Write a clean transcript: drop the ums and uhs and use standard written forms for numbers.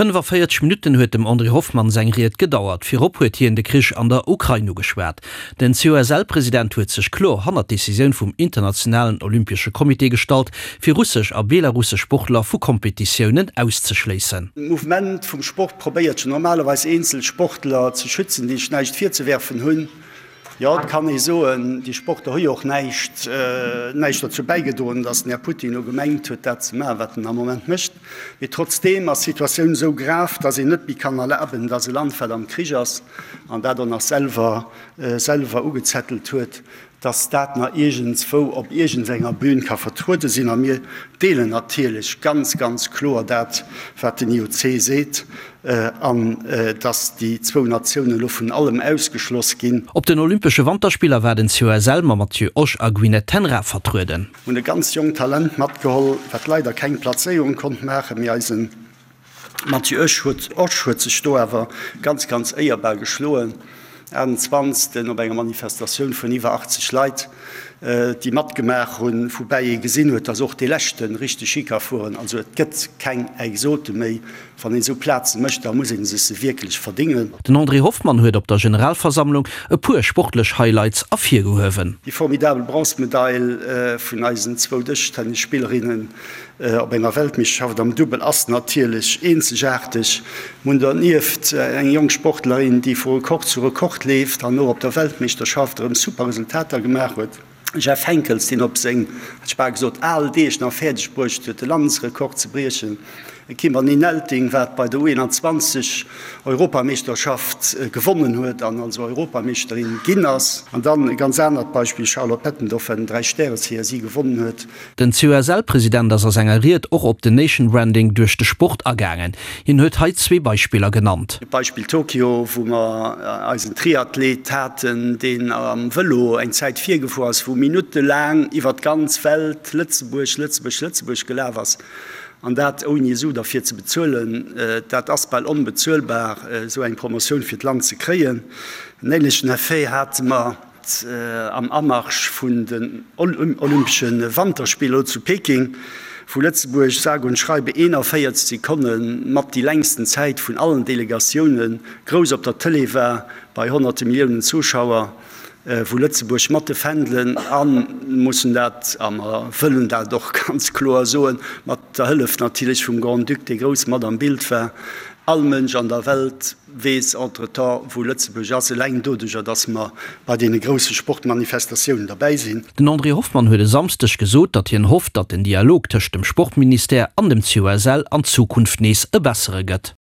45 Minutten huet dem André Hoffmann seng Ried gedauert. Virop huet hien de Krich an der Ukrain ugeschwat. Den COSL-President huet sech kloer hannert d'Decisioun vum Internationalen Olympesche Comité gestallt, fir russesch a belarussesch Sportler vu Kompetitiounen auszeschléissen. D'Mouvement vum Sport probéiert jo normalerweis eenzel Sportler ze schützen, déi sech näischt virzewerfen hunn. Jo, et kann ee soen, déi Sportler hu jo och näischt, näischt dozou bäigedroen, datt den Här Putin elo gemengt huet, dat ze maachen, wat en am Moment mécht. Mee trotzdeem ass d'Situatioun esou grav, datt een net méi kann erlaben, datt e Land, wat am Krich ass an dat och nach selwer, selwer ugezettelt huet, datt dat nach iergendswou op iergendenger Bühn ka vertruede sinn. A mir deelen natierlech ganz, ganz kloer dat, wat den IOC seet, an datt déi zwou Natiounen elo vun allem ausgeschloss ginn. Op den Olympesche Wanterspiller war den COSL mam Matthieu Osch a Gwyneth ten Raa vertrueden. Hunn e ganz jonkt Talent matgeholl, wat leider keng Plazéierung konnt maachen, mee eisen Matthieu Osch huet Osch huet sech do awer ganz ganz éierbar geschloen. 28. Op enger Manifestatioun vun iwwer 80 Leit, déi matgemaach hunn, woubäi ee gesinn huet, dass och dee leschte richteg Ski ka fueren. Also et gëtt keng Exote méi. Wann een esou Plaze mécht, da muss ee sech se wierklech verdingen. Den André Hoffmann huet op der Generalversammlung e puer sportlech Highlights ervirgehuewen. Déi formidabel Bronzemedail vun eisen zwou Dëschtennisspillerinnen op enger Weltmeeschterschaft am Dubbel ass natierlech eenzegaarteg. Mir hunn dernieft eng jonk Sportlerin, déi vu Rekord zu Rekord leeft an och op der Weltmeeschterschaft erëm super Resultater gemaach huet. Jeff Henckels, deen op seng, hätt ech bal gesot, al Deeg nach fäerdeg bruecht huet, de Landesrekord ze briechen. E Kimberly Nelting, wat bei der U21 Europameeschterschaft gewonnen huet an also Europameeschterin ginn ass. An dann e ganz anert Beispill, Charlotte Bettendorf, wat den Dräi-Stäre-CSI gewonnen huet. Den COSL-President ass a senger Ried och op den Nation Branding duerch de Sport agaangen. Hien huet hei zwee Beispiller genannt. Beispill Tokio, wou mer eisen Triathlet haten, deen am Vëlo eng Zäit virgefuer ass, wou minuttelaang iwwer d'ganz Welt Lëtzebuerg, Lëtzebuerg, Lëtzebuerg gelaf ass, an dat ouni e Su derfir ze bezuelen. Dat ass bal onbezuelbar, esou eng Promotioun fir d'Land ze kréien. En ähnlechen Effet hate mer. Am Amarsch vun den Olympesche Wanterspiller elo zu Peking, wou Lëtzebuerg sage und schreibe 41 Sekonne mat déi längsten Zäit vun allen Delegatioune grouss op der Tëlee war, bei honnerte Milliounen Zuschauer, wou Lëtzebuerg mat de Fändelen a mussen dat, a mer wëllen dat och ganz kloer soen, mat der Hëllef natierlech vum Grand-Duc, dee grouss mat am Bild war, all Mënsch an der Welt weess entretemps, wou Lëtzebuerg ass, eleng doduerjer, dass mer bei deene grousse Sportmanifestatiounen derbäi sinn. Den André Hoffmann huet e Samsdeg gesot, datt hien hofft, datt den Dialog tëscht dem Sportministère an dem COSL an Zukunft nees e bessere gëtt.